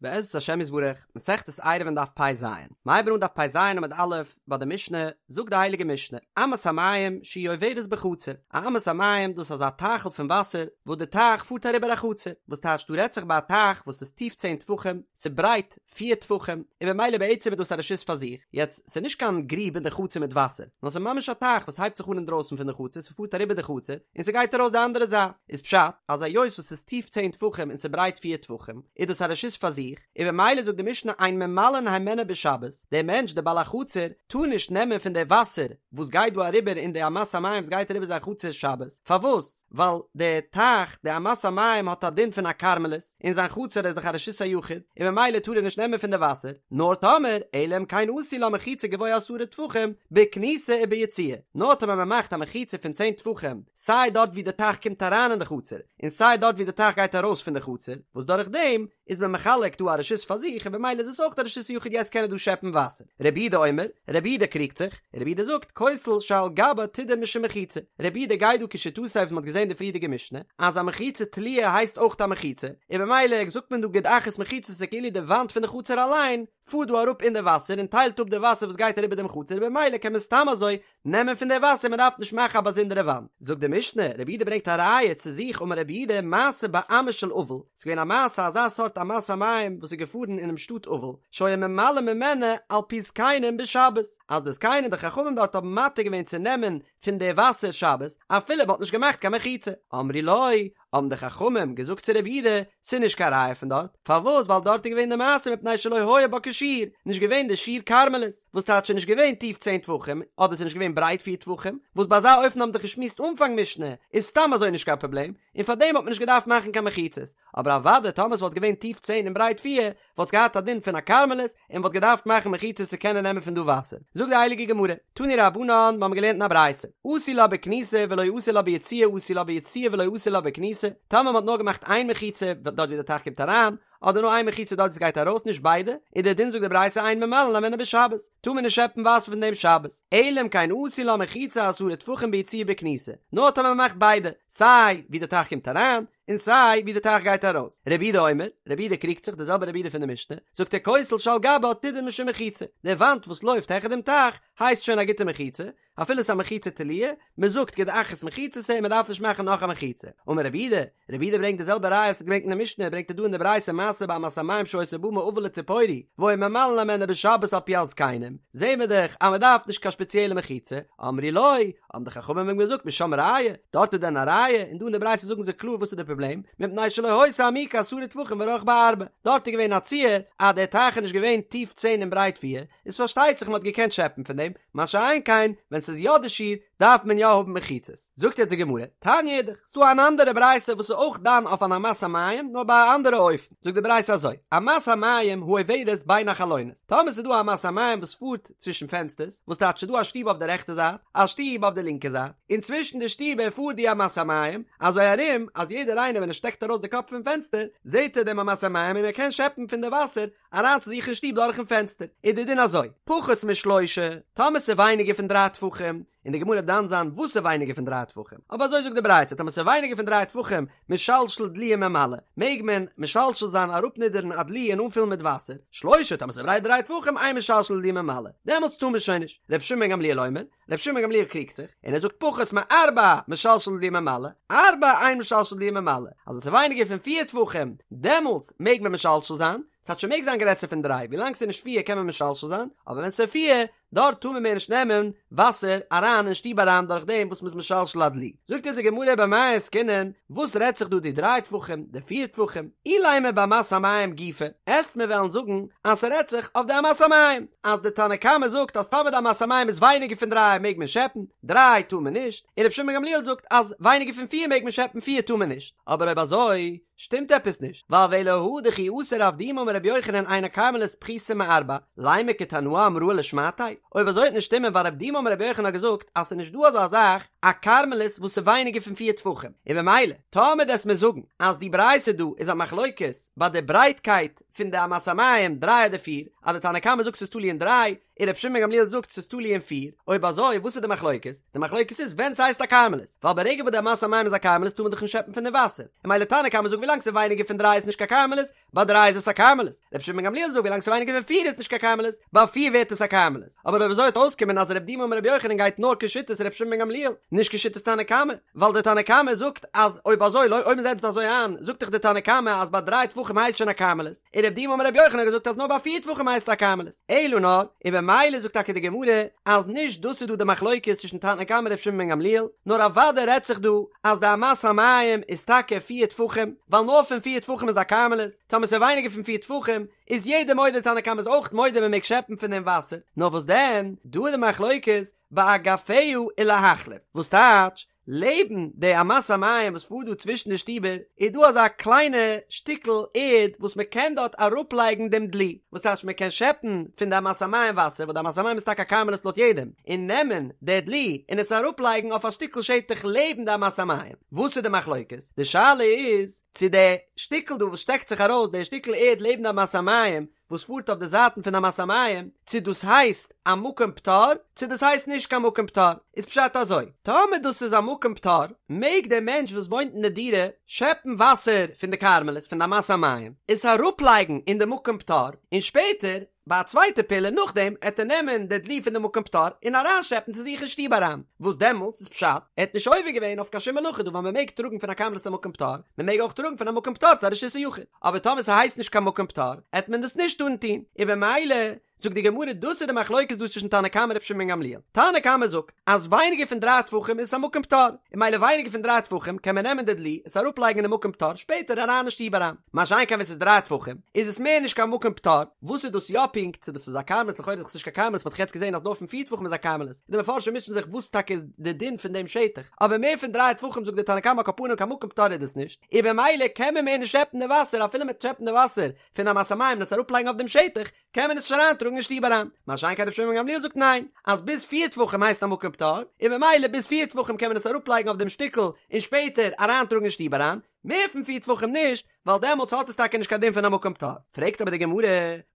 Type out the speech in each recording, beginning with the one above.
בעזרת השם יתברך, מסכת עירובין דף פ"ז, מ'הייבן אן דף פ"ז עמוד א', ביי די משנה, זאגט די הייליגע משנה, אמת המים שהיא עוברת בחצר, א אמת המים דאס איז אזא טייכל פון וואסער וואס די טייך פארט אריבער א חצר, וואס טייטש דא רעדט זיך ביי א טייך וואס איז טיף צען טפחים, ס'ברייט פיר טפחים, און במילא בעצם איז דאס א רשות פאר זיך, יעצט ס'איז נישט קיין גריב אין די חצר מיט וואסער, נאר ס'איז ממש א טייך וואס הייבט זיך אן אינדרויסן פון די חצר, ס'פארט אריבער די חצר, און ס'גייט ארויס די אנדערע זייט, איז פשט אז היות וואס ס'איז טיף צען טפחים און ס'ברייט פיר טפחים, איז דאס א רשות פאר זיך, און במילא זאגט די משנה אין ממלאין הימנה בשבת, דער מענטש דער בעל החצר טאר נישט נעמען פון די וואסער וואס גייט דא אריבער אין די אמת המים וואס גייט אריבער זיין חצר שבת, פארוואס? ווייל די טייך, די אמת המים האט א דין פון א כרמלית, און זיין חצר איז דאך א רשות היחיד, און במילא טאר ער נישט נעמען פון די וואסער, נאר טאמער, אלא אם כן עשו לה מחיצה גבוה עשרה טפחים, בכניסה וביציאה, נאר טאמער מען מאכט א מחיצה פון צען טפחים, סיי דארט ווי די טייך קומט אריין אין די חצר, און סיי דארט ווי די טייך גייט ארויס פון די חצר, וואס דורך דעם איז מען מחלק דא א רשות פאר זיך און במילא איז עס אויך א רשות היחיד יעצט קען ער דא שעפן וואסער. רבי יהודה אומר, רבי יהודה קריגט זיך, רבי יהודה זאגט, כותל שעל גבה תדון משום מחיצה, רבי יהודה גייט דא כשיטתו וואס מען האט געזען די פריערדיגע משנה, אז א מחיצה תלויה הייסט אויך א מחיצה, און במילא זאגט מען דא גוד אחית מחיצתא כאילו די וואנט פון די חצר אליין פארט דא אראפ אין די וואסער און טיילט אפ די וואסער וואס גייט אריבער דעם חצר און במילא קען מען סתם אזוי נעמען פון די וואסער מען דארף נישט מאכן א באזונדערע וואנט. זאגט די משנה, רבי יהודה ברענגט א ראיה צו זיך אמר רבי יהודה מעשה באמה של אבל, ס'איז געווען א מעשה אזא סארט אמת המים וואס איז געפארן אינעם שטאט אבל, שהיו ממלאין ממנה על פי זקנים בשבת, אז די זקנים די חכמים דארט האבן מתיר געווען צו נעמען פון די וואסער שבת אפילו מ'האט נישט געמאכט קיין מחיצה, אמרו לו, האבן די חכמים געזאגט צו רבי יהודה, ס'איז נישט קיין ראיה פון דארט, פארוואס ווייל דארט איז געווען די מעשה מפני שלא היה בה כשיעור, נישט געווען די שיעור כרמלית, וואס טייטש ס'איז נישט געווען טיף צען טפחים, אדער ס'איז נישט געווען ברייט פיר טפחים, וואס ביי אזא אופן האבן דאך געשמועסט אנפאנג משנה, איז סתם אזוי נישט קיין פראבלעם, און פארדעם האט מען נישט געדארפט מאכן קיין מחיצות, אבער אוודאי טאמער ס'וואלט געווען טיף צען און ברייט פיר, וואלט עס געהאט א דין פון א כרמלית און מ'וואלט געדארפט מאכן מחיצות צו קענען נעמען פון דא וואסער. זאגט די הייליגע גמרא, תנו רבנן, מיר האבן געלערנט אין א ברייתא, עשו לה בכניסה ולא עשו לה ביציאה עשו לה ביציאה ולא עשו לה בכניסה, טאמער מ'האט נאר געמאכט איין מחיצה דארט ווי די טייך קומט אריין, אדער נאר איין מחיצה דארט ווי ס'גייט ארויס נישט ביידע, איז דער דין זאגט די ברייתא אין ממלאין הימנה בשבת, טאר מען נישט שעפן וואסער פון דעם שבת, אלא אם כן עשו לה מחיצה עשרה טפחים ביציאה ובכניסה, נאר טאמער מ'מאכט ביידע, סיי ווי די טייך קומט אריין, און סיי ווי די טייך גייט ארויס. רבי יהודה אומר, רבי יהודה קריגט זיך, די זעלבע רבי יהודה פון די משנה, זאגט ער כותל שעל גבה תדון משום מחיצה, די וואנט וואס לויפט העכער דעם טייך הייסט שוין א גוטע מחיצה, אפילו ס'איז א מחיצה תלויה, מען זאגט גוד אחית מחיצתא און מען דארף נישט מאכן נאך א מחיצה. אמר רבי יהודה, רבי יהודה ברענגט די זעלבע ראיה וואס ער האט געברענגט אין די משנה, ברענגט ער דא אין די ברייתא מעשה באמת המים שהיתה באה מאבל לציפורי, והיו ממלאין הימנה בשבת על פי הזקנים, זעהן מיר דאך אז מען דארף נישט קיין שפעציעלע מחיצה, אמרו לו, האבן די חכמים אים געזאגט משם ראיה, דארט איז דען א ראיה? און דא אין די ברייתא זאגן זיי קלאר וואס איז די פראבלעם, מפני שלא היתה עמוקה עשרה טפחים ורחבה ארבעה, דארט איז געווען א ציור אז דער טייך איז נישט געווען טיף צען און ברייט פיר, איז פארשטייט זיך מען האט געקענט שעפן פון דעם, מה שאין כן ווען ס'איז יא די שיעור דארף מען יא האבן מחיצות. זאגט יעצט די גמרא, תניא אידך, ס'דא אן אנדערע ברייתא וואס איז אויך דן אויף אן אמת המים נאר ביי א אנדערע אופן, זאגט די ברייתא אזוי, אמת המים העוברת בין החלונות, טאמער ס'איז דא א אמת המים וואס פארט צווישן פענסטערס, וואס טייטש ס'דא א שטוב אויף די רעכטע זייט, א שטוב אויף די לינקע זייט, און צווישן די שטיבער פארט די אמת המים, אזוי ארום אז יעדער איינער ווען ער שטעקט ארויס די קאפ פון פענסטער, זעט ער דעם אמת המים און ער קען שעפן פון די וואסער אריין צו זיך אין שטוב דורכן פענסטער. איז די דין אזוי, פחות משלושה, טאמער ס'איז ווייניגער פון דריי טפחים, און די גמרא וועט דן זיין וואס איז ווייניגער פון דריי טפחים, אבער אזוי זאגט די ברייתא, טאמער ס'איז ווייניגער פון דריי טפחים, משלשל דלי וממלא, מעג מען משלשל זיין אראפנידערן א דלי און אנפילן מיט וואסער, שלושה, טאמער ס'איז ברייט דריי טפחים, אין משלשל דלי וממלא, דעמאלטס טאר מען שוין נישט, רבי שמעון בן גמליאל אומר, רבי שמעון בן גמליאל קריגט זיך, און ער זאגט פחות מארבע, משלשל דלי וממלא, ארבע, אין משלשל דלי וממלא, אז ווען ס'איז ווייניגער פון פיר טפחים, דעמאלטס מעג מען משלשל זיין, ס'טייטש ס'מעג זיין גרעסער פון דריי, ווילאנג ס'איז נישט פיר קען מען משלשל זיין, אבער ווען ס'איז פיר, דארט טאר מען מער נישט נעמען וואסער אריין אין שטוב אריין דורך דעם וואס מ'איז משלשל א דלי. זאגט אונז די גמרא במאי עסקינן, וואס רעדט זיך דא די דריי טפחים, די פיר טפחים, אילימא באמת המים גופא, עסט מיר וועלן זאגן אז ס'רעדט זיך אויף די אמת המים, אז די תנא קמא זאגט אז טאמער די אמת המים איז ווייניגער פון דריי מעג מען שעפן, דריי טאר מען נישט, און רבי שמעון בן גמליאל זאגט אז ווייניגער פון פיר מעג מען שעפן פיר טאר מען נישט, אבער אויב אזוי שטימט עפעס נישט, ווייל ואלא הא דכי אתא רב דימי אמר רבי יוחנן אין הכרמלית פחותה מארבע, לימא כתנאי אמראי לשמעתיה? אויב אזוי וועט נישט שטימען ווייל רב דימי אמר רבי יוחנן האט געזאגט אז ס'איז נישט דא אזא זאך א כרמלית וואס איז ווייניגער פון פיר טפחים, און במילא טאמער דו'סט מיר זאגן אז די ברייתא דא איז א מחלוקת ביי די ברייטקייט פון די אמת המים דריי אדער פיר, אז די תנא קמא זאגט ס'איז תלוי אין דריי, און רבי שמעון בן גמליאל זאגט ס'איז תלוי אין פיר, אויב אזוי וואס איז די מחלוקת? די מחלוקת איז ווען ס'הייסט א כרמלית, ווייל ברגע וואס די אמת המים איז א כרמלית טאר מען דאך נישט שעפן פון די וואסער, און ממילא תנא קמא זאגט ווילאנג ס'איז ווייניגער פון דריי איז נישט קיין כרמלית, ביי דריי איז עס א כרמלית, רבי שמעון בן גמליאל זאגט ווילאנג ס'איז ווייניגער פון פיר איז נישט קיין כרמלית, ביי פיר ווערט עס א כרמלית, אבער אויב אזוי וועט אויסקומען אז רב דימי אמר רבי יוחנן גייט נאר כשיטת רבי שמעון בן גמליאל, נישט כשיטת תנא קמא, ווייל דער תנא קמא זאגט אז אויב אזוי אויב מ'זעצט אזוי איין זאגט דאך דער תנא קמא אז ביי דריי טפחים הייסט שוין א כרמלית, און רב דימי אמר רבי יוחנן האט געזאגט אז נאר ביי פיר טפחים הייסט עס א כרמלית, אלא נאר, און במילא זאגט טאקע די גמרא אז נישט דאס איז דא די מחלוקת צווישן תנא קמא און רבי שמעון בן גמליאל, נאר אוודאי רעדט זיך דא אז די אמת המים איז טאקע פיר טפחים, ווייל נאר פון פיר טפחים איז א כרמלית, טאמער ס'איז ווייניגער פון פיר טפחים איז יעדער מודה תנא קמא איז אויך מודה מ'מעג שעפן פון דעם וואסער, נאר וואס דען, דא איז די מחלוקת באגפיה ולהחליף, וואס טייטש, לעבן די אמת המים וואס פארט דא צווישן די שטיבער איז דא אזא קליינע שטיקל ערד וואס מען קען דארט אראפלייגן דעם דלי, וואס טייטש מען קען שעפן פון די אמת המים וואסער וואס די אמת המים איז טאקע א כרמלית לויט יעדעם, און נעמען די דלי און עס אראפלייגן אויף א שטיקל שטח לעבן די אמת המים. וואס איז די מחלוקת? די שאלה איז צו די שטיקל דא וואס שטעקט זיך ארויס, די שטיקל ערד לעבן די אמת המים, וואס פארט אויף די זייטן פון אמת המים, צו דאס הייסט א מקום פטור, צו דאס הייסט נישט קיין מקום פטור, איז פשט אזוי, טאמער דאס איז א מקום פטור, מעג דער מענטש וואס וואוינט אין די דירה שעפן וואסער פון די כרמלית פון די אמת המים, עס אראפלייגן אין די מקום פטור, און שפעטער, ביי א צווייטע פעולה נאכדעם, עט ער נעמען די דלי פון די מקום פטור און אריינשעפן צו זיך אין שטוב אריין, וואס דעמאלטס איז פשט, ער האט נישט עובר געווען אויף קיין שום מלאכה דא ווייל מען מעג טראגן פון א כרמלית צו א מקום פטור, מען מעג אויך טראגן פון א מקום פטור צו א רשות היחיד. אבער טאמער ס'הייסט נישט קיין מקום פטור, עט מען דאס נישט טארן טון, און במילא זאגט די גמרא דאס איז די מחלוקת דא צווישן תנא קמא און רבי שמעון בן גמליאל, תנא קמא זאגט אז ווייניגער פון דריי טפחים איז עס א מקום פטור, און ממילא ווייניגער פון דריי טפחים קען מען נעמען די דלי עס אראפלייגן אינעם מקום פטור שפעטער אריין אין שטוב אריין, מה שאין כן ווען ס'איז דריי טפחים איז עס מער נישט קיין מקום פטור, וואס איז דאס יא פונקט צו דאס איז א כרמלית לכאורה איז דאך עס נישט קיין כרמלית מ'האט דאך יעצט געזען אז נאר פון פיר טפחים איז א כרמלית, די מפרשים מוטשען זיך וואס טאקע איז די דין פון דעם שטח, אבער מער פון דריי טפחים זאגט די תנא קמא על כל פנים קיין מקום פטור איז דאס נישט. און במילא קען מען מער נישט שעפן די וואסער אפילו מ'עט שעפן די וואסער פון אמת המים און עס אראפלייגן אויף דעם שטח קען מען עס נישט אריינטראגן אין שטוב אריין, מה שאין כן רבי שמעון בן גמליאל זאגט ניין אז ביז פיר טפחים הייסט א מקום פטור און במילא ביז פיר טפחים קען מען עס אראפלייגן אויף דעם שטיקל און שפעטער אריינטראגן אין שטוב אריין, מער פון פיר טפחים נישט ווייל דעמאלטס האט עס טאקע נישט קיין דין פון א מקום פטור. פרעגט אבער די גמרא,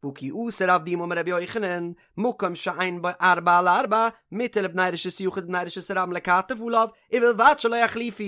והא כי אתא רב דימי אמר רבי יוחנן, מקום שאין בו ארבעה על ארבעה, מותר לבני רשות היחיד ובני רשות הרבים לכתף עליו, ובלבד שלא יחליפו.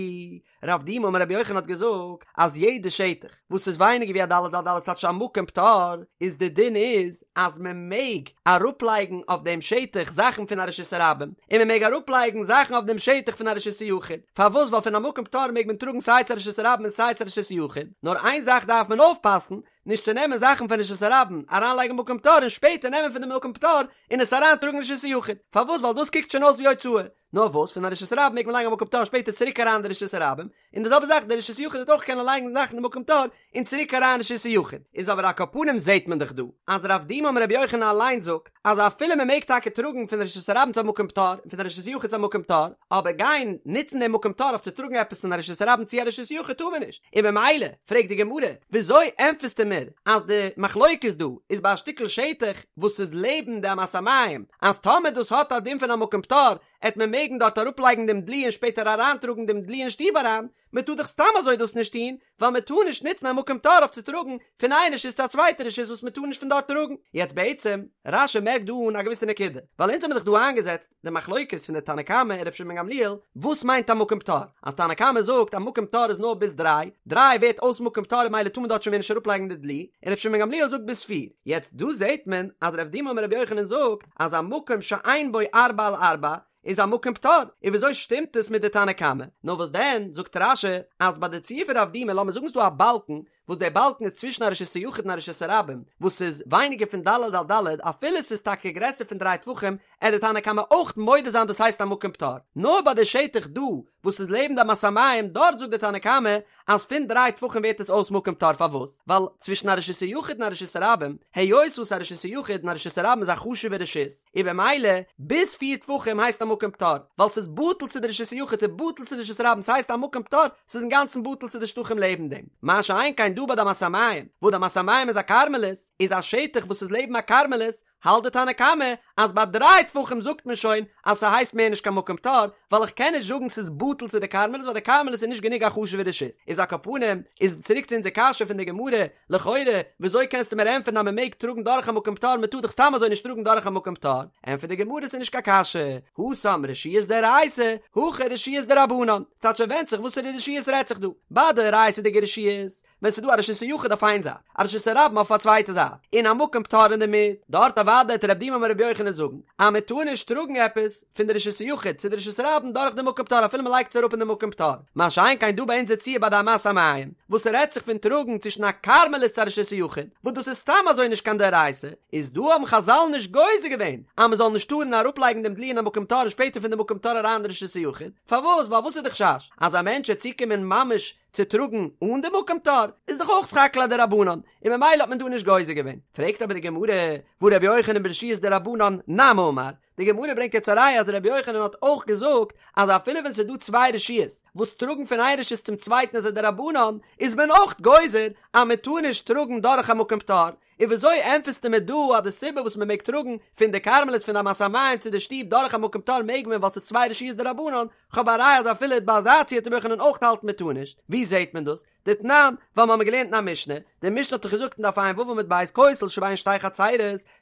רב דימי אמר רבי יוחנן האט געזאגט אז יעדע שטח וואס איז ווייניגער ווי א ד' על ד' טייטש א מקום פטור איז די דין איז אז מען מעג אראפלייגן אויף דעם שטח זאכן פון א רשות הרבים און מען מעג אראפלייגן זאכן אויף דעם שטח פון א רשות היחיד פארוואס ווייל פון א מקום פטור מעג מען טראגן סיי צו א רשות הרבים און סיי צו א רשות היחיד נאר איין זאך דארף מען אויפפאסן נישט צו נעמען זאכן פון רשות הרבים אריינלייגן מקום פטור און שפעטער נעמען פון די מקום פטור און עס אריינטראגן רשות היחיד פארוואס ווייל דאס קוקט שוין אויס ווי הוצאה נאר וואס פון א רשות הרבים מעג מען לייגן א מקום פטור שפעטער צוריק אריין אין די רשות הרבים, און די זעלבע זאך די רשות יחיד וועט אויך קענען לייגן זאכן אין מקום פטור און צוריק אריין רשות היחיד, איז אבער על כל פנים זעהט מען דאך דא אז רב דימי אמר רבי יוחנן אליין זאגט אז אפילו מען מעג טאקע טראגן פון רשות הרבים צו א מקום פטור און פון א רשות יחיד צו א מקום פטור, אבער גיין נוצן דעם מקום פטור אויף צו טראגן עפעס פון א רשות הרבים צו א רשות יחיד טאר מען נישט, און במילא פרעגט די גמרא וויאזוי ענטפערסטו מיר אז די מחלוקת דא איז ביי א שטיקל שטח וואס איז לעבן די אמת המים, אז טאמער דאס האט א דין פון א מקום פטור, עט מען מעגן דארט אראפלייגן דעם דלי און שפעטער אריינטראגן דעם דלי אין שטוב אריין, מען טאר דאך סתם אזוי דאס נישט טון, ווייל מען טאר נישט נוצן א מקום פטור אויף צו טראגן פון איין רשות צו א צווייטע רשות וואס מען טאר נישט פון דארט טראגן. יעצט בעצם, רש"י מערקט דא אן א געוויסע נקודה, ווייל אונז האבן דאך דא איינגעזעצט די מחלוקת פון די תנא קמא און רבי שמעון בן גמליאל, וואס מיינט א מקום פטור? אז תנא קמא זאגט א מקום פטור איז נאר ביז דריי, דריי ווערט אויס מקום פטור און ממילא טאר מען דארט שוין מער נישט אראפלייגן די דלי, און רבי שמעון בן גמליאל זאגט ביז פיר. יעצט דא זעט מען אז רב דימי אמר רבי יוחנן זאגט אז א מקום שאין בו ארבעה על ארבעה איז א מקום פטור, און וויאזוי שטימט עס מיט די תנא קמא? נאר וואס דען, זאגט רש"י אז ביי די ציור פון רב דימי לאמיר זאגן ס'דא א באלקן וואס דער באלקן איז צווישן א רשות היחיד און א רשות הרבים, וואס איז ווייניגער פון ד' על ד', אפילו ס'איז טאקע גרעסער פון דריי טפחים, עט די תנא קמא אויך מודה זיין דאס הייסט א מקום פטור. נאר ביי די שטח דא וואס איז לעבן די אמת המים דארט זאגט די תנא קמא אז פון דריי טפחים ווערט עס אויס מקום פטור פארוואס? ווייל צווישן א רשות היחיד און א רשות הרבים, היות וואס א רשות היחיד און א רשות הרבים איז א חשוב'ע רשות, און במילא ביז פיר טפחים הייסט א מקום פטור, ווייל ס'איז בטל צו די רשות היחיד ס'איז בטל צו די רשות הרבים ס'הייסט א מקום פטור, ס'איז אינגאנצן בטל צו די שטחים לעבן דעם. מה שאין כן דא ביי די אמת המים, וואס די אמת המים איז א כרמלית, איז א שטח וואס איז לעבן א כרמלית, האלט די תנא קמא אז ביי דריי טפחים זאגט מען שוין אז ס'הייסט מער נישט קיין מקום פטור, ווייל איך קען נישט זאגן ס'איז בטל צו די כרמלית ווייל די כרמלית איז נישט גענוג א חשוב'ע רשות. איז על כל פנים, איז צוריק צו אונזער קשיא פון די גמרא, לכאורה, וויאזוי קענסטו מיר ענטפערן אז מ'מעג טראגן דורך א מקום פטור, מ'טאר דאך סתם אזוי נישט טראגן דורך א מקום פטור? ענטפערט די גמרא ס'איז נישט קיין קשיא, התם רשויות דאורייתא, הכא רשויות דרבנן, ס'טייטש ס'ווענדט זיך וואסערע רשויות רעדט זיך דא, ביי דאורייתא'דיגע רשויות, ווען ס'איז דא א רשות היחיד אויף איין זייט, א רשות הרבים אויף א צווייטע זייט, און א מקום פטור אינדערמיט, דארט אוודאי וועט רב דימי אמר רבי יוחנן זאגן אז מען טאר נישט טראגן עפעס פון די רשות היחיד צו די רשות הרבים דורך די מקום פטור אפילו מען לייגט עס אראפ אין די מקום פטור, מה שאין כן דא ביי אונזער ציור ביי די אמת המים, וואס ס'רעדט זיך פון טראגן צווישן א כרמלית צו א רשות היחיד, וואס דאס איז סתם אזוי נישט קיין דאורייתא, איז דא האבן חזל נישט גוזר געווען אז מען זאל נישט טארן אראפלייגן דעם דלי אין א מקום פטור און שפעטער פון די מקום פטור אריין אין די רשות היחיד, פארוואס? ווייל וואס איז די חשש? אז א מענטש וועט צוקומען ממש צו טראגן אן די מקום פטור איז דאך אויך סך הכל א דרבנן, און ממילא האט מען דא נישט גוזר געווען. פרעגט אבער די גמרא, והא רבי יוחנן ברשויות דרבנן נמי אמר, די גמרא ברענגט יעצט א ראיה אז רבי יוחנן האט אויך געזאגט אז אפילו ווען ס'איז דא צוויי רשויות וואס טראגן פון איין רשות צום צווייטן איז א דרבנן, איז מען אויך גוזר אז מען טאר נישט טראגן דורך א מקום פטור, און וויאזוי ענטפערסטו מיר דא אז די סיבה וואס מען מעג טראגן פון די כרמלית פון די אמת המים צו די שטוב דורך א מקום פטור מעג מען ווייל ס'איז צוויי רשויות דרבנן, כ'האב א ראיה אז אפילו ביי אזא ציור וועט רבי יוחנן אויך האלטן מען טאר נישט, ווי זעהט מען דאס? דתנן, ווייל מ'האמיר געלערנט אין א משנה, די משנה האט דאך געזאגט אין דף ע"ו עמוד ב' כותל שבין שתי חצרות,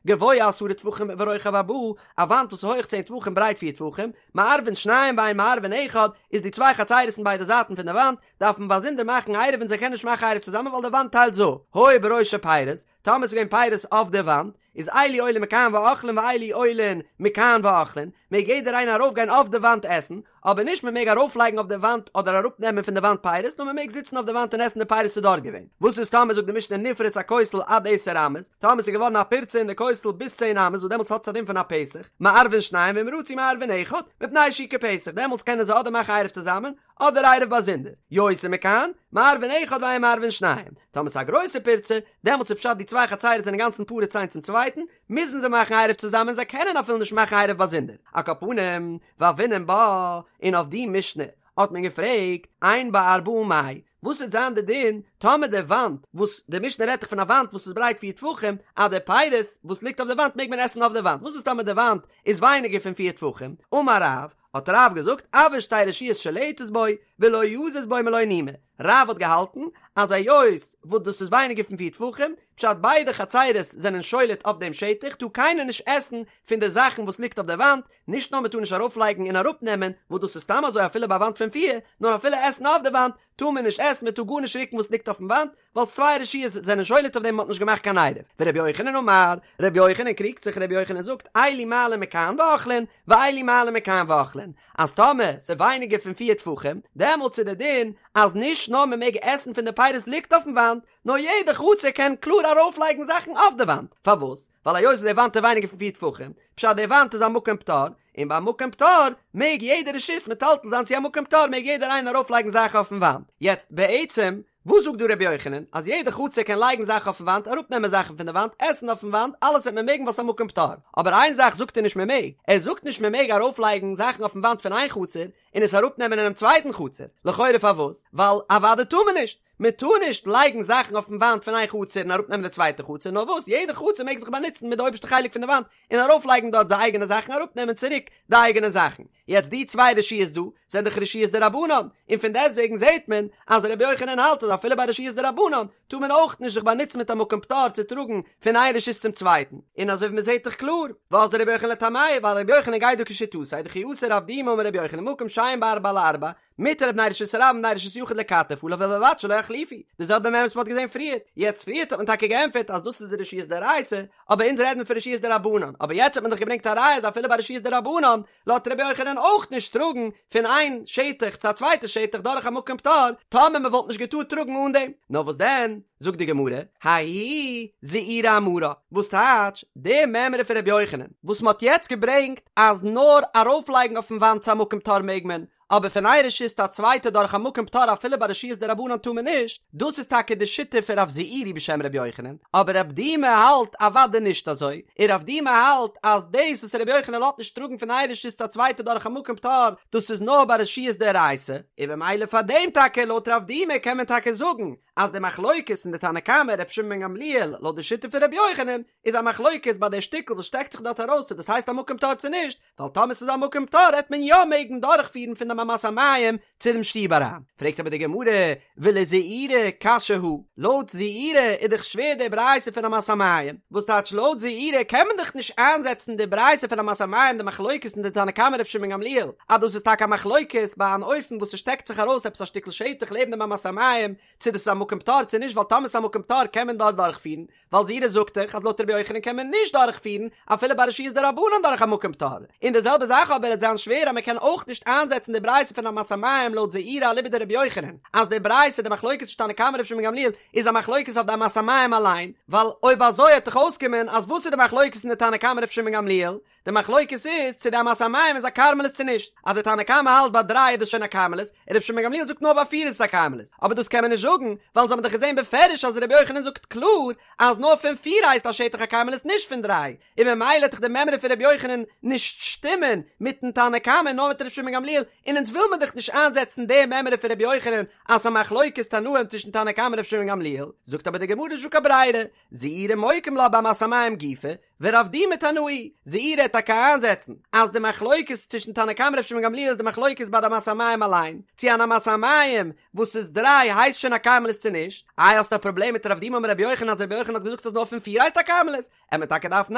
גבוה עשרה טפחים ורוחב ארבעה, א וואנט וואס איז הויך צען טפחים ברייט פיר טפחים, מערבין שניים ואין מערבין אחד, איז די צוויי חצרות אין ביידע זייטן פון די וואנט, דארף מען באזונדער מאכן עירוב און זיי קענען נישט מאכן עירוב צוזאמען ווייל די וואנט טיילט זיי אפ, היו בראשו פירות, טאמער ס'איז געווען פירות אויף די וואנט, איז אלו עולין מכאן ואוכלין ואלו עולין מכאן ואוכלין, מעג יעדער איינער ארויף גיין אויף די וואנט עסן, אבער נישט מען מעג ארויף לייגן אויף די וואנט אדער אראפ נעמען פון די וואנט פירות, נאר מען מעג זיצן אויף די וואנט און עסן די פירות ס'איז דארט געווען. וואס איז טאמער זאגט די משנה נפרץ הכותל עד עשר אמות, טאמער ס'איז געווארן א פירצה אין די כותל ביז צען אמות וואס דעמאלטס האט עס א דין פון א פתח, מערבין שניים ואם רצו מערבין אחד, מפני שהוא כפתח, דעמאלטס קענען זיי אדער מאכן עירוב צוזאמען, אדער עירוב באזונדער, יותר מכאן, מערבין אחד ואין מערבין שניים, טאמער ס'איז א גרויסע פירצה, דעמאלטס איז פשט די צוויי חצרות זענען אינגאנצן פרוץ איינס צום צווייטן, מוזן זיי מאכן עירוב צוזאמען זיי קענען אפילו נישט מאכן עירוב באזונדער, על כל פנים, והוינן בה, און אויף די משנה האט מען געפרעגט, אין בה ארבעה מאי, וואס וועט זיין די דין טאמער די וואנט, וואס די משנה רעדט דאך פון א וואנט וואס איז ברייט פיר טפחים, אז די פירות וואס ליגט אויף די וואנט מעג מען עסן אויף די וואנט, וואס איז טאמער די וואנט איז ווייניגער פון פיר טפחים, אמר רב, האט רב געזאגט אויר שתי רשויות שולטת בו ולא יזיז בו מלא נימא, רב האט געהאלטן אז היות וואס דאס איז ווייניגער פון פיר טפחים, פשט ביידע חצרות זענען שולט אויף דעם שטח טאר קיינער נישט עסן פון די זאכן וואס ליגט אויף די וואנט, נישט נאר מען טאר נישט ארויפלייגן און אראפנעמען, וואס דאס איז סתם אזוי אפילו ביי א וואנט פון פיר, נאר אפילו עסן אויף די וואנט טאר מען נישט עסן, מען טאר גארנישט רוקן וואס ליגט אויפן וואנט, ווייל צוויי רשויות זענען שולט אויף דעם מ'האט נישט געמאכט קיין עירוב. ורבי יוחנן אמר, רבי יוחנן קריגט זיך רבי יוחנן זאגט, אלו מעלין מכאן ואוכלין, ואלו מעלין מכאן ואוכלין, אז טאמער ס'איז ווייניגער פון פיר טפחים, דעמאלטס איז די דין אז נישט נאר מ'מעג עסן פון די פירות ליגט אויפן וואנט, נאר יעדע חצר קען קלאר ארויפלייגן זאכן אויף די וואנט. פארוואס? ווייל היות די וואנט איז ווייניגער פון פיר טפחים, פשט די וואנט איז א מקום פטור, און ביי מקום פטור מעג יעדע רשות מטלטל זיין צו א מקום פטור מעג יעדער איינער ארויפלייגן זאכן אויפן וואנט. יעצט בעצם וואס זאגט דא רבי יוחנן? אז יעדע חצר קען לייגן זאכן אויפן וואנט, אראפנעמען זאכן פון די וואנט, עסן אויפן וואנט, אלעס וועט מען מעגן ווייל ס'איז א מקום פטור. אבער איין זאך זאגט ער נישט מען מעג, ער זאגט נישט מען מעג ארויפלייגן זאכן אויפן וואנט פון איין חצר און עס אראפנעמען אינעם צווייטן חצר. לכאורה פארוואס? ווייל אוודאי טאר מען נישט! מען טאר נישט לייגן זאכן אויפן וואנט פון איין חצר און אראפנעמען די צווייטע חצר, נאר וואס יעדע חצר מעג זיך באנוצן מיט די אויבערשטע חלק פון די וואנט און ארויפלייגן דארט די אייגענע זאכן אראפנעמען צוריק די אייגענע זאכן. יעצט די צוויי רשויות דא זענען דאך רשויות דרבנן, און פון דעסטוועגן זעט מען אז רבי יוחנן האלט אז אפילו ביי רשויות דרבנן טאר מען אויך נישט זיך באנוצן מיט א מקום פטור צו טראגן פון איין רשות צום צווייטן, און אזוי ווי מען זעט דאך קלאר ואזדא רבי יוחנן לטעמיה ווייל רבי יוחנן גייט דא כשיטתו דכי אתא רב דימי אמר רבי יוחנן מקום שאין בו ארבעה על ארבעה מותר לבני רשות הרבים ובני רשות היחיד לכתף עליו ובלבד שלא יחליפו, די זעלבע מימרא וואס מען האט געזען פריער, יעצט פריערט האט מען טאקע געענטפערט אז דאס איז רשויות דאורייתא, אבער אונז רעדן פון רשויות דרבנן, אבער יעצט האט מען דאך געברענגט א ראיה אז אפילו ביי רשויות דרבנן לאזט רבי יוחנן אויך נישט טראגן פון איין שטח צו א צווייטע שטח דורך א מקום פטור, טאמער מען וואלט נישט געטארט טראגן אן דעם. נאר וואס דען, זאגט די גמרא, ההיא זעירא אמרה, וואס טייטש די מימרא פון רבי יוחנן וואס מען האט יעצט געברענגט אז נאר ארויפלייגן אויפן וואנט צו א מקום פטור מעג מען, אבער פון איין רשות צו א צווייטע דורך א מקום פטור אפילו ביי רשויות דרבנן טאר מען נישט, דאס איז טאקע די שיטה פון רב זעירי בשם רבי יוחנן, אבער רב דימי האלט אוודאי נישט אזוי, און רב דימי האלט אז דאס וואס רבי יוחנן לאזט נישט טראגן פון איין רשות צו א צווייטע דורך א מקום פטור, דאס איז נאר ביי רשויות דאורייתא, און במילא פאר דעם טאקע לויט רב דימי קען מען טאקע זאגן אז די מחלוקת אין די תנא קמא רבי שמעון בן גמליאל לויט די שיטה פון רבי יוחנן איז א מחלוקת ביי די שטיקל וואס שטעקט זיך דארט ארויס צו דאס הייסט א מקום פטור צו נישט, ווייל טאמער ס'איז א מקום פטור העט מען יא מעגן דורכפירן פון דעם אמת המים צו דעם שטוב אריין. פרעגט אבער די גמרא, ולזעירי קשיא הא, לויט זעירי איז דאך שווער די ברייתא פון אמת המים, וואס טייטש לויט זעירי קען מען דאך נישט איינזעצן די ברייתא פון אמת המים די מחלוקת אין די תנא קמא ר' שמעון גמליאל אז דאס איז טאקע א מחלוקת ביי אן אופן וואס ס'שטעקט זיך ארויס עפעס א שטיקל שטח לעבן דעם אמת המים צו דאס איז א מקום פטור צו נישט ווייל טאמער ס'איז א מקום פטור קען מען דארט דורכפירן ווייל זעירי זאגט דאך אז לויט רבי יוחנן קען מען נישט דורכפירן אפילו ביי רשויות דרבנן דורך א מקום פטור, און די זעלבע זאך אבער עט זיין שווער אז מען קען אויך נישט איינזעצן די ברייתא פון אמת המים לויט זעירי אליבא דרבי יוחנן אז די ברייתא די מחלוקת צווישן תנא קמא רבי שמעון גמליאל איז א מחלוקת אויף די אמת המים אליין, ווייל אויב אזוי עט דאך אויסקומען אז וואס איז די מחלוקת אין די תנא קמא רבי שמעון גמליאל? די מחלוקת איז צו די אמת המים איז א כרמלית צו נישט, אז די תנא קמא האלט ביי דריי איז דאס שוין א כרמלית, און רבי שמעון גמליאל זאגט נאר ביי פיר איז עס א כרמלית, אבער דאס קען מען נישט זאגן, ווייל אונז האבן דאך געזען בפירוש אז רבי יוחנן זאגט קלאר אז נאר פון פיר הייסט א שטח א כרמלית נישט פון דריי, און ממילא עט דאך די מימרא פון רבי יוחנן נישט שטימען מיטן תנא קמא נאר מיט רבי שמעון גמליאל, און אונז וויל מען דאך נישט איינזעצן די מימרא פון רבי יוחנן אז ס'איז א מחלוקת תנאים צווישן תנא קמא און רבי שמעון גמליאל, זאגט אבער די גמרא נישט דא קיין ברירה, זעירי מוקים לה באמת המים גופא, ורב דימי תנאי, זעירי עט טאקע איינזעצן אז די מחלוקת צווישן תנא קמא ר' שמעון גמליאל איז די מחלוקת ביי די אמת המים אליין, צו אן אמת המים וואס איז דריי הייסט שוין א כרמלית צו נישט, איי האסטו א פראבלעם מיט רב דימי אמר רבי יוחנן אז רבי יוחנן האט געזאגט אז נאר פון פיר הייסט א כרמלית, עט מען טאקע דארפן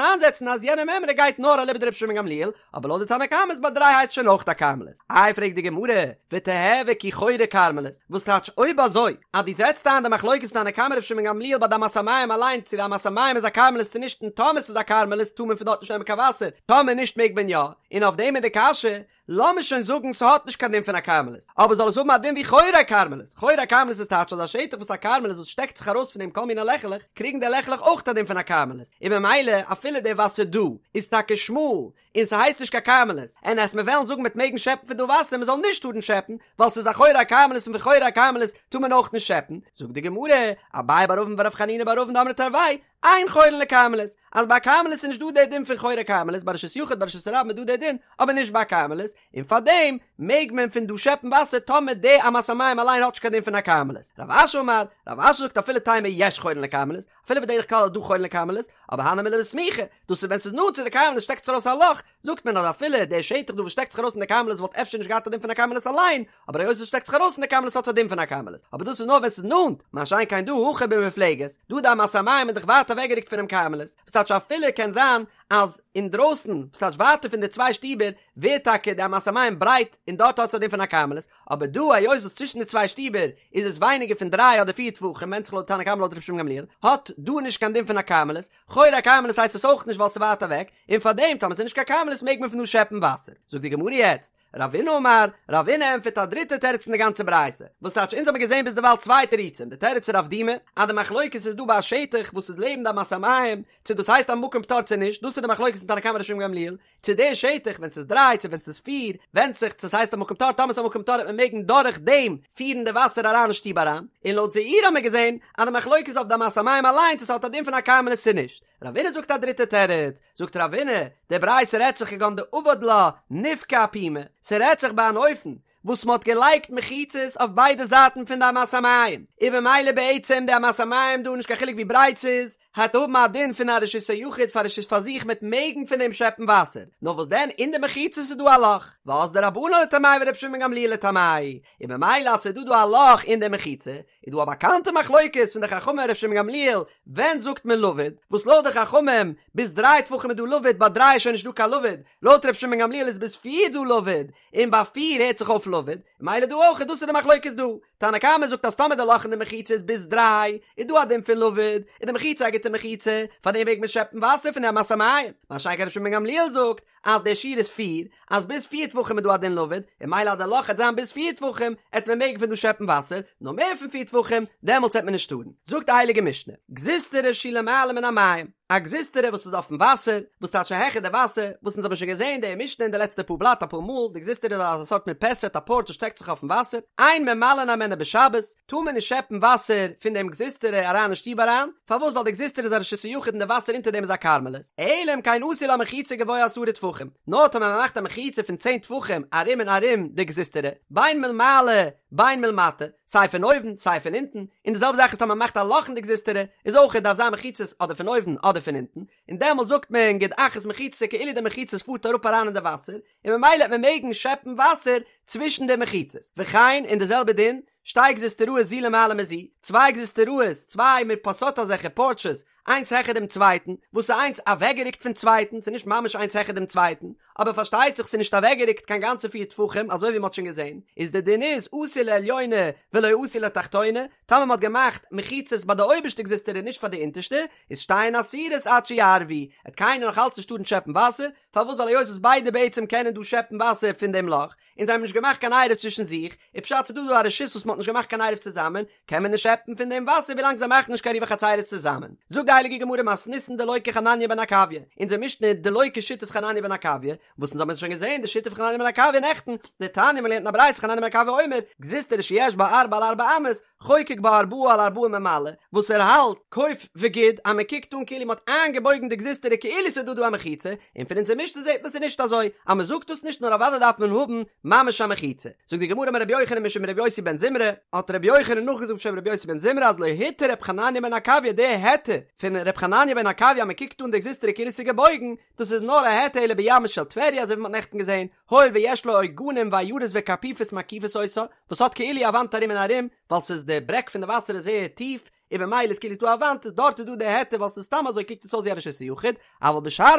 איינזעצן אז יענע מימרא גייט נאר אליבא דרבי שמעון גמליאל, אבער לויט די תנא קמא איז ביי דריי הייסט שוין אויך א כרמלית. איי פרעגט די גמרא, ותיהוי כי חורי כרמלית, וואס טייטש אויב אזוי אז דו זעצט איין די מחלוקת תנא קמא ר' שמעון גמליאל ביי די אמת המים אליין צו די אמת המים איז א כרמלית צו נישט און טאמער ס'איז א כרמלית טאר מען פון דארט נישט נעמען קיין וואסער טאמער נישט מעג מען יא, און אויף דעם איז די קשיא, לאמיר שוין זאגן ס'האט נישט קיין דין פון א כרמלית, אבער זאל עס האבן א דין ווי חורי כרמלית, חורי כרמלית איז טייטש אז א שטח וואס א כרמלית וואס שטעקט זיך ארויס פון דעם כל מיני לעכעלעך, קריגן די לעכעלעך אויך א דין פון א כרמלית, און ממילא אפילו די וואסער דא איז טאקע שמאל און ס'הייסט נישט קיין כרמלית, און אז מיר וועלן זאגן מ'עט מעגן שעפן פון דא וואסער מ'זאל נישט טארן שעפן, ווייל ס'איז א חורי הכרמלית און פון חורי הכרמלית טאר מען אויך נישט שעפן, זאגט די גמרא, אביי בר אבין ורב חנינא בר אבין דאמרי תרוייהו, אין חורין לכרמלית, אז ביי כרמלית איז נישט דא דער דין פון חורי כרמלית, ביי רשות יחיד ביי רשות הרבים איז דא דער דין, אבער נישט ביי כרמלית, און פארדעם מעג מען פון דא שעפן וואסער טאמער די אמת המים אליין האט נישט קיין דין פון א כרמלית. רב אשי אמר, רב אשי זאגט אפילו תימא יש חורין לכרמלית, אפילו בדרך כלל איז דא חורין לכרמלית, אבער הני מילי בסמיכא, דאס איז ווען ס'איז נאנט צו די כרמלית שטעקט זיך ארויס א לאך, זאגט מען אז אפילו דער שטח דא וואס שטעקט זיך ארויס אין די כרמלית וואלט אפשר נישט געהאט א דין פון א כרמלית אליין, אבער היות עס שטעקט זיך ארויס אין די כרמלית האט עס א דין פון א כרמלית, אבער דאס איז נאר ווען ס'איז נאנט, מה שאין כן דא הכא במופלגת, דא די אמת המים איז דאך ווייט אוועקגערוקט פונעם כרמלית, וואס טייטש אפילו קען זיין אז אינדרויסן, וואס טייטש ווייטער פון די צוויי שטיבער, ווערט טאקע די אמת המים ברייט און דארט האט עס א דין פון א כרמלית, אבער דא היות וואס צווישן די צוויי שטיבער איז עס ווייניגער פון דריי אדער פיר טפחים ווענדט זיך לויט תנא קמא לויט רבי שמעון גמליאל, האט דא נישט קיין דין פון א כרמלית, חורי הכרמלית הייסט עס אויך נישט ווייל ס'איז ווייט אוועק, און פארדעם טאמער ס'איז נישט קיין כרמלית מעג מען פון דא שעפן וואסער. זאגט די גמרא יעצט, רבינא אמר, רבינא ענטפערט א דריטע תירוץ אין די גאנצע ברייתא, וואס טייטש אונז האבן געזען ביזדערווייל צוויי תירוצים, די תירוץ פון רב דימי, אז די מחלוקת איז דא ביי א שטח וואס איז לעבן די אמת המים, צו דאס הייסט א מקום פטור צו נישט, דאס איז די מחלוקת פון תנא קמא רבי שמעון גמליאל, צו די שטח ווען ס'איז דריי צו ווען ס'איז פיר, ווענדט זיך צו ס'הייסט א מקום פטור, טאמער ס'איז א מקום פטור וועט מען מעגן דורך דעם פירן די וואסער אריין אין שטוב אריין, און לויט זעירי האבן מיר געזען אז די מחלוקת איז אויף די אמת המים אליין צו ס'האט א דין פון א כרמלית צו נישט. רבינא זאגט א דריטע תירוץ, זאגט רבינא, די ברייתא רעדט זיך כגון דעבד לה נפקא אפומה, ס'רעדט זיך ביי אן אופן וואס מ'האט געלייגט מחיצות אויף ביידע זייטן פון די אמת המים, און במילא בעצם די אמת המים דא נישט קיין חילוק ווי ברייט ס'איז, העט האבן א דין פון א רשות היחיד פאר רשות פאר זיך מ'עט מעגן פון דעם שעפן וואסער, נאר וואס דען אין די מחיצות איז דא א לאך, ואזדו רבנן לטעמייהו ורבי שמעון בן גמליאל לטעמיה, און במילא אז ס'איז דא דא א לאך אין די מחיצה, איז דא א באקאנטע מחלוקת פון די חכמים און ר' שמעון גמליאל ווען זאגט מען לבוד, וואס לויט די חכמים ביז דריי טפחים איז דא לבוד ביי דריי איז שוין נישט דא קיין לבוד, לויט ר' שמעון גמליאל איז ביז פיר דא לבוד, און ביי פיר הערט זיך אויף לבוד, מילא דא אויך דאס איז די מחלוקת דא, תנא קמא זאגט אז טאמער די לאך אין די מחיצה איז ביז דריי איז דא א דין פון לבוד, איז די מחיצה א גוטע מחיצה, פארדעם מעג מען שעפן וואסער פון די אמת המים, מה שאין כן ר' שמעון גמליאל זאגט אז דער שיעור איז פיר, אז ביז פיר טפחים איז דא א דין לבוד, און מילא אז די לאך העט זיין ביז פיר טפחים, העט מען מעגן פון דא שעפן וואסער, נאר מער פון פיר טפחים, דעמאלטס העט מען נישט טארן. זאגט די הייליגע משנה, גזוזטרא שהיא למעלה מן המים. א גזוזטרא וואס איז אויפן וואסער, וואס טייטש העכער די וואסער, וואס אונז האבן שוין געזען די משנה אין די לעצטע פאר בלאט אפאר מאל, די גזוזטרא איז אזא סארט מרפסת, א פארטש וואס שטעקט זיך אויפן וואסער, אין ממלאין הימנה בשבת, טאר מען נישט שעפן וואסער פון דעם גזוזטרא אריין אין שטוב אריין, פארוואס ווייל די גזוזטרא איז א רשות היחיד און די וואסער אונטער דעם איז א כרמלית, אלא אם כן עשו לה מחיצה גבוה עשרה טפחים, נאר טאמער מען מאכט א מחיצה פון צען טפחים ארום און ארום די גזוזטרא, בין מלמעלה בין מלמטה, סיי פון אויבן סיי פון אונטן, און די זעלבע זאך איז טאמער מען מאכט א לאך אין די גזוזטרא, איז אויך דארף זיין מחיצות אדער פון אויבן אדער פון אונטן, און דעמאלט זאגט מען גוד אחית מחיצתא כאילו די מחיצות פארט אראפ אריין אין די וואסער, און ממילא וועט מען מעגן שעפן וואסער צווישן די מחיצות. וכן, און די זעלבע דין, שתי גזוזטראות זו למעלה מזו, צוויי גזוזטראות, צוויי מרפסות אזעלכע פארטשעס, איינס העכער דעם צווייטן, וואס איז איינס אוועקגערוקט פון צווייטן, ס'איז נישט ממש איינס העכער דעם צווייטן, אבער פארשטייט זיך ס'איז נישט אוועקגערוקט קיין גאנצע פיר טפחים אזוי ווי מ'האט שוין געזען, איז די דין איז עשו לעליונה ולא עשו לתחתונה, טאמער מ'האט געמאכט מחיצות ביי די אויבערשטע גזוזטרא און נישט פאר די אונטערשטע, איז שתיהן אסורות עד שיערבו, עט קיינער נאך אלץ נישט טארן שעפן וואסער, פארוואס ווייל היות וואס ביידע בעצם קענען דא שעפן וואסער פון דעם לאך, און זיי האבן נישט געמאכט קיין עירוב צווישן זיך, איז פשט ס'דא דא א רשות וואס מ'האט נישט געמאכט קיין עירוב צוזאמען, קען מען נישט שעפן פון דעם וואסער ווילאנג זיי מאכן נישט קיין עירובי חצירות צוזאמען. זאגט די הייליגע גמרא מתניתין דלא כחנניה בן עקביא, אונזער משנה איז דלא כשיטת חנניה בן עקביא, וואס אונז האבן שוין געזען די שיטה פון חנניה בן עקביא נעכטן, דתניא מ'לערנט אין א ברייתא חנניה בן עקביא אומר, גזוזטרא שיש בה ארבע על ארבע אמות, חוקק בה ארבעה על ארבעה ממלא, וואס ער האלט, כוף וגוד, אז מען קוקט אן כאילו מען האט איינגעבויגן די גזוזטרא כאילו ס'איז דא דא א מחיצה, און פון אונזער משנה זעט מען ס'איז נישט אזוי, אז מען זאגט דאס נישט נאר אוודאי דארף מען האבן ממש א מחיצה. זאגט די גמרא אמר רבי יוחנן משום רבי יוסי בן זמרה, האט רבי יוחנן נאכגעזאגט בשם רבי יוסי בן זמרה אז לא התיר רבי חנניה בן עקביא די היתר פון רבי חנניה בן עקביא אז מען קוקט אן די גזוזטרא כאילו ס'איז געבויגן, דאס איז נאר א היתר אלא בימה של טבריה אזוי ווי מען האט נעכטן געזען, הואיל ויש לה עוגנים ועיירות וקרפיפות מקיפות אותה, וואס האט כאילו א וואנט ארום און ארום, ווייל ס'איז די ברעג פון די וואסער איז זייער טיף, און במילא איז כאילו ס'דא א וואנט, איז דארט איז דא די היתר ווייל ס'איז סתם אזוי קוקט עס אויס ווי א רשות היחיד, אבל בשאר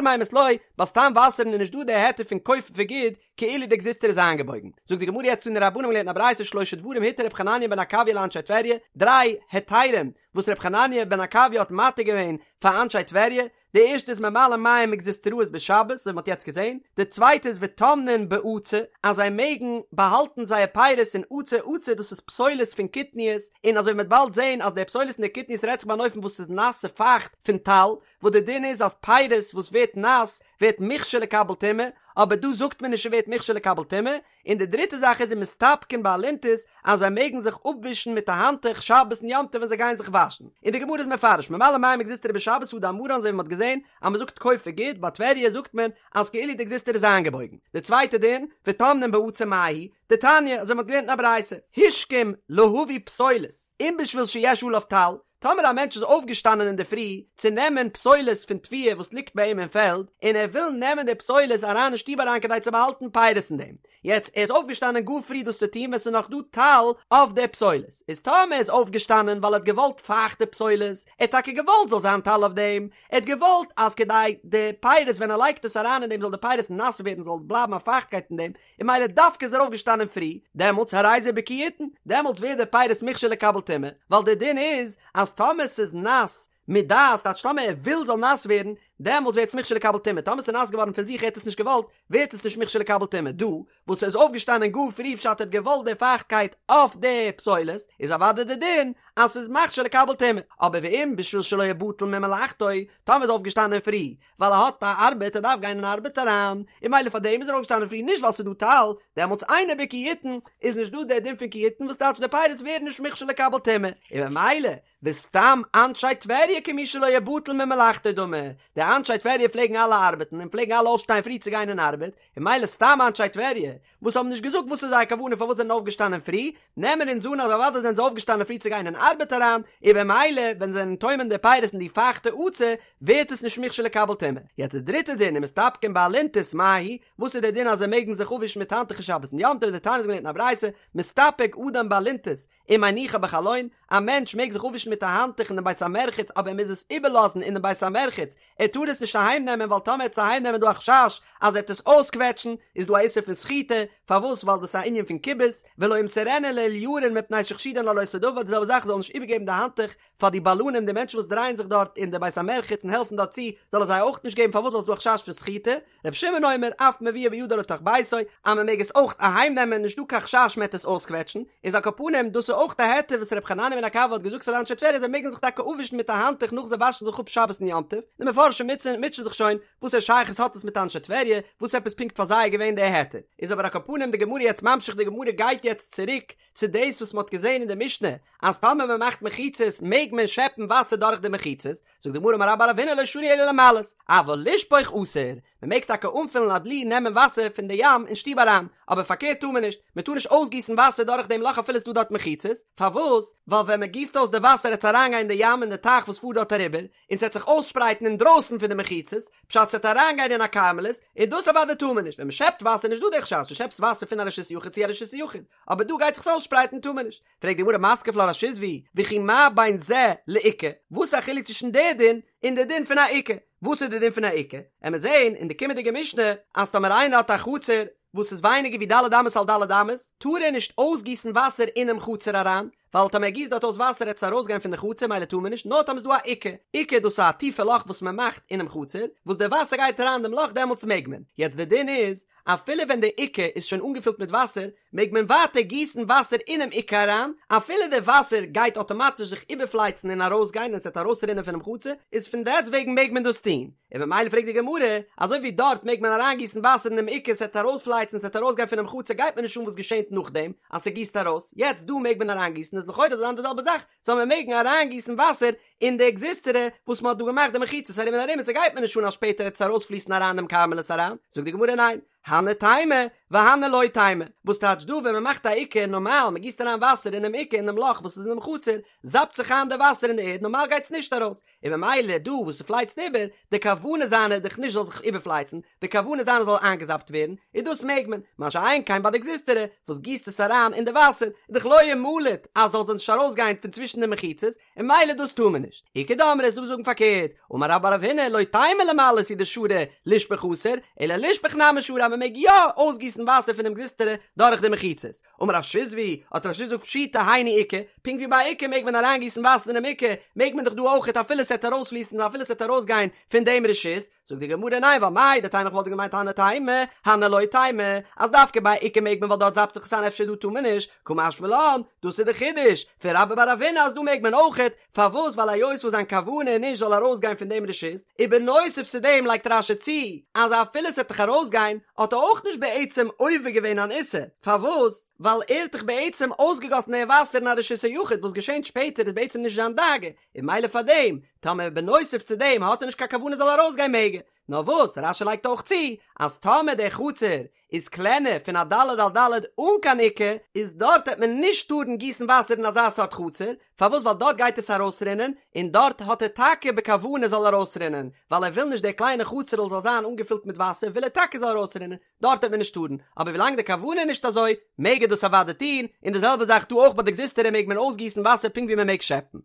מימות לא, ביי סתם וואסערן איז נישט דא די היתר פון כוף וגוד, כאילו די גזוזטרא איז איינגעבויגן. זאגט די גמרא יעצט תנו רבנן מ'האט געלערנט אין א ברייתא שלשה דברים התיר ר' חנניה בן עקביא לאנשי טבריה, דריי היתרים וואס ר' חנניה בן עקביא האט מתיר געווען פאר אנשי טבריה, די ערשטע איז ממלאין מים מגזוזטראות בשבת, אזוי ווי מ'האט יעצט געזען, די צווייטע איז וטומנין בעצה, אז זיי מעגן באהאלטן זייער פירות אין עצה, עצה דאס איז פסולת פון קטניות, און אזוי ווי מ'וועט באלד זען אז די פסולת פון די קטניות רעדט זיך ביי אן אופן וואס איז נאס און פייכט פון טל, וואס די דין איז אז פירות וואס ווערט נאס ווערט מוכשר לקבל טומאה, אבער דא זאגט מען נישט ס'ווערט מוכשר לקבל טומאה, און די דריטע זאך איז ומסתפגין באלונטית אז זיי מעגן זיך אפווישן מיט א האנטוך שבת און יום טוב ווען זיי גייען זיך וואשן, און די גמרא איז מפרש ממלאין מים מגזוזטרא בשבת הא דאמרן אזוי ווי מען האט געזען אז מען זאגט כוף וגוד ביי טבריה זאגט מען אז כאילו די גזוזטרא איז איינגעבויגן, די צווייטע דין וטומנין בעצה מאי היא דתניא אזוי ווי מען האט געלערנט אין א ברייתא השכים להביא פסולת אם בשביל שיש עליו טל טאמער א מענטש איז אויפגעשטאנען אינדערפרי צו נעמען פסולת פון תבואה וואס ליגט ביי אים אין פעלד, און ער וויל נעמען די פסולת אריין אין שטוב אריין כדי צו באהאלטן פירות אין דעם, יעצט ער איז אויפגעשטאנען גאר פרי דאס צו טון ווען ס'איז נאך דא טל אויף די פסולת, איז טאמער ער איז אויפגעשטאנען ווייל ער האט געוואלט פייכטע פסולת, ער האט טאקע געוואלט זאל זיין טל אויף דעם, ער האט געוואלט אז כדי די פירות ווען ער לייגט עס אריין אין דעם זאל די פירות נאס ווערן זאל בלייבן א פייכטקייט אין דעם, און ממילא דווקא איז ער אויפגעשטאנען פרי, דעמאלטס הרי זה בקי יותן, דעמאלטס ווערט די פירות מוכשר לקבל טומאה, ווייל דער דין איז אז טאמער ס'איז נאס מדעת, טייטש טאמער ער וויל זאל נאס ווערן, דעמאלטס ווערט עס מוכשר לקבל טומאה, טאמער ס'איז נאס געווארן פון זיך ער האט עס נישט געוואלט, ווערט עס נישט מוכשר לקבל טומאה, דא וואס ער איז אויפגעשטאנען גאר פרי פשט ער האט געוואלט די פייכטקייט אויף די פסולת, איז אוודאי די דין אז ס'איז מכשיר לקבל טומאה, אבער ואם בשביל שלא יבטל ממלאכתו, טאמער איז אויפגעשטאנען פרי, ווייל ער האט א ארבעט ער דארף גיין אין ארבעט אריין, און ממילא פאר דעם איז ער אויפגעשטאנען פרי נישט ווייל ס'איז דא טל, דעמאלטס אינו בקי יותן איז נישט דא דער דין פון כי יותן וואס טייטש די פירות ווערן נישט מוכשר לקבל טומאה, און ממילא וסתם אנשי טבריה כמי שלא יבטל ממלאכתו דמי, די אנשי טבריה פלעגן אלע ארבעטן און פלעגן אלע אויפשטיין פרי צו גיין אין ארבעט, און ממילא סתם אנשי טבריה וואס האבן נישט געזאגט וואס איז זייער כוונה פארוואס זיי זענען אויפגעשטאנען פרי, נעמען אונז אן אז אוודאי זענען זיי אויפגעשטאנען פרי צו גיין אין ארבעט אריין, און במילא ווען זיי זענען טומן די פירות אין די פייכטע עצה ווערט עס נישט מוכשר לקבל טומאה. יעצט די דריטע דין ומסתפגין באלונטית מאי היא, וואס איז דער דין אז זיי מעגן זיך אפווישן מיט האנטוכער שבת און יום טוב, דתניא מ'האט געלערנט אין א ברייתא, מסתפג אדם באלונטית ומניחה בחלון, א מענטש מעג זיך אפווישן מיט א האנטוך אין דעם בית המרחץ אבער ער מוז עס איבערלאזן אינעם בית המרחץ, ער טאר עס נישט אהיים נעמען ווייל טאמער ער וועט עס אהיים נעמען איז דא א חשש אז ער וועט עס אויסקוועטשן, איז דא א איסור פון סחיטה, פארוואס ווייל דאס איז א ענין פון כיבוס, ולא ימסרנה לאוליירין מפני שחשודין על אותו דבר, די זעלבע זאך זאל נישט איבערגעבן די האנטוך פאר די בלנים די מענטשן וואס דרייען זיך דארט אין די בית המרחץ און העלפן דארט צו, זאל ער זיי אויך נישט געבן פארוואס ווייל ס'איז דא א חשש פון סחיטה, רבי שמעון אומר אף מביאה בידו לתוך ביתו, אז מען מעג עס אויך אהיים נעמען נישט דא קיין חשש מען וועט עס אויסקוועטשן, איז על כל פנים דאס איז אויך א היתר וואס רבי חנניה בן עקביא האט געזאגט פאר די אנשי. טבריה זיי מעגן זיך טאקע אפווישן מיט א האנטוך נאך זיי וואשן זיך אפ שבת און יום טוב, די מפרשים מוטשען זיך שוין וואס א שייכות האט עס מיט אנשי טבריה, וואס עפעס פונקט פאר זיי איז געווען די היתר, איז אבער על כל פנים די גמרא יעצט ממשיך די גמרא גייט יעצט צוריק צו דאס וואס מען האט געזען אין די משנה אז טאמער מען מאכט מחיצות מעג מען שעפן וואסער דורך די מחיצות, זאגט די גמרא אמר רבה בר רב הונא לא שנו אלא למלאות, אבל לשפוך אסור, מען מעג טאקע אנפילן א דלי נעמען וואסער פון די ים אין שטוב אריין, אבער פארקערט טאר מען נישט, מען טאר נישט אויסגיסן וואסער דורך דעם לאך אפילו עס איז דא דארט מחיצות, פארוואס? ווייל ווען מען גיסט אויס די וואסער עט עס אריינגיין אין די ים אין די טייך וואס פארט דארט אריבער, און ס'עט זיך אויסשפרייטן אינדרויסן פון די מחיצות, פשט ס'עט אריינגיין אין א כרמלית, און דאס אוודאי טאר מען נישט, ווען מען שעפט וואסער איז נישט דא די חשש, דו שעפסט וואסער פון א רשות יחיד צו א רשות יחיד, אבער דא גייט זיך עס אויסשפרייטן טאר מען נישט. פרעגט די גמרא מתקיף לה רב שיזבי, וכי מה בין זה לעוקה, וואס איז א חילוק צווישן די דין און די דין פון א עוקה? וואס איז די דין פון א עוקה? עמיר זעהן אין די קומענדיגע משנה אז טאמער איינער האט א חצר וואס איז ווייניגער ווי ד' אמות על ד' אמות, טאר ער נישט אויסגיסן וואסער אינעם חצר אריין, ווייל טאמער ער גיסט דארט אויס וואסער עט עס ארויסגיין פון די חצר מילא טאר מען נישט, נאר טאמער איז דא א עוקה, עוקה דאס איז א טיפע לאך וואס מען מאכט אינעם חצר, וואס די וואסער גייט אריין דעם לאך דעמאלטס מעג מען, יעצט די דין איז, אפילו ווען די עוקה איז שוין אנגעפילט מיט וואסער, מעג מען ווייטער גיסן וואסער אינעם עוקה אריין, אפילו די וואסער גייט אטאמאטיש זיך איבערפלייצן און ארויסגיין און ס'וועט ארויסרינען פונעם חצר, איז פון דעסטוועגן מעג מען דאס טון, און ממילא פרעגט די גמרא, אזוי ווי דארט מעג מען אריינגיסן וואסער אינעם עוקה ס'וועט ארויספלייצן ס'וועט ארויסגיין פונעם חצר גייט מיר נישט אן וואס געשענט נאכדעם אז ס'גיסט ארויס, יעצט דא מעג מען אריינגיסן איז לכאורה זאל זיין די זעלבע זאך, זאל מען מעגן אריינגיסן וואסער אין די גזוזטרא וואס מ'האט דא געמאכט די מחיצות ארום און ארום און ס'גייט מיר נישט אן אז שפעטער וועט עס ארויספליסן אריין אינעם כרמלית אריין, זאגט די גמרא ניין, הני תימא והני לא תימא, וואס טייטש דא ווען מ'מאכט א עוקה נארמאל מ'גיסט אריין וואסער אינעם עוקה אינעם לאך וואס איז אינעם חצר זאפט זיך איין די וואסער אין די ערד נארמאל גייטס נישט ארויס, און ממילא דא וואס ס'פלייצט איבער, די כוונה זיינע איז דאך נישט זאל זיך איבערפלייצן, די כוונה זיינע זאל איינגעזאפט ווערן, און דאס מעג מען, מה שאין כן ביי די גזוזטרא וואס גיסט עס אריין אין די וואסער, איז דאך לא ימלט אז זאל זיך נישט ארויסגיין פון צווישן די מחיצות, און ממילא דאס טאר מען נישט. איכא דאמרי איז דא וואס זאגן פארקערט, אמר רבה בר רב הונא לא תימא למלאות הוא דשרי לשפוך אסור, אלא לשפוך נמי שרי אז מען מעג יא אויסגיסן וואסער פונעם גזוזטרא דורך די מחיצות. אמר רב שיזבי, האט רב שיזבי געזאגט פשיטא היינו עוקה, פונקט ווי ביי עוקה מעג מען אריינגיסן וואסער אינעם עוקה, מעג מען דאך דא אויכעט אפילו ס'עט ארויספליסן און אפילו ס'עט ארויסגיין פון דעם רשות, זאגט די גמרא ניין ווייל מהו דתימא איך וואלט געמיינט הני תימא, הני לא תימא, אז דווקא ביי עוקה מעג מען ווייל דארט זאפט זיך עס איין אפשר דא טאר מען נישט, קא משמע לן, דאס איז די חידוש פון רבה בר רב הונא אז דא מעג מען אויכעט, פארוואס ווייל היות וואס זיין כוונה איז נישט זאל ארויסגיין פון דעם רשות, ובנוסף צו דעם לייגט רש"י צו אז אפילו ס'עט דאך ארויסגיין האט ער אויך נישט בעצם עובר געווען אן איסור, פארוואס ווייל ער האט דאך בעצם אויסגעגאסן דעם וואסער אין א רשות היחיד וואס געשענט שפעטער איז בעצם נישט זיין דאגה, און ממילא פאר דעם טאמער בנוסף צו דעם האט ער נישט קיין כוונה זאל ארויסגיין מעג ער, נאר וואס רש"י לייגט אויך צו אז טאמער דער חצר איז קלענער פון א ד' על ד' אן קיין עוקה, איז דארט העט מען נישט טארן גיסן וואסער אין אזא סארט חצר, פארוואס ווייל דארט גייט עס ארויסרינען, און דארט האט ער טאקע בכוונה זאל ארויסרינען, ווייל ער וויל נישט דער קליינע חצר'ל זאל זיין אנגעפילט מיט וואסער וויל ער טאקע זאל ארויסרינען, דארט העט מען נישט טארן, אבער ווילאנג די כוונה איז נישט אזוי, מעג ער דאס אוודאי טון, און די זעלבע זאך דא אויך ביי די גזוזטרא מעג מען אויסגיסן וואסער פונקט ווי מען מעג שעפן.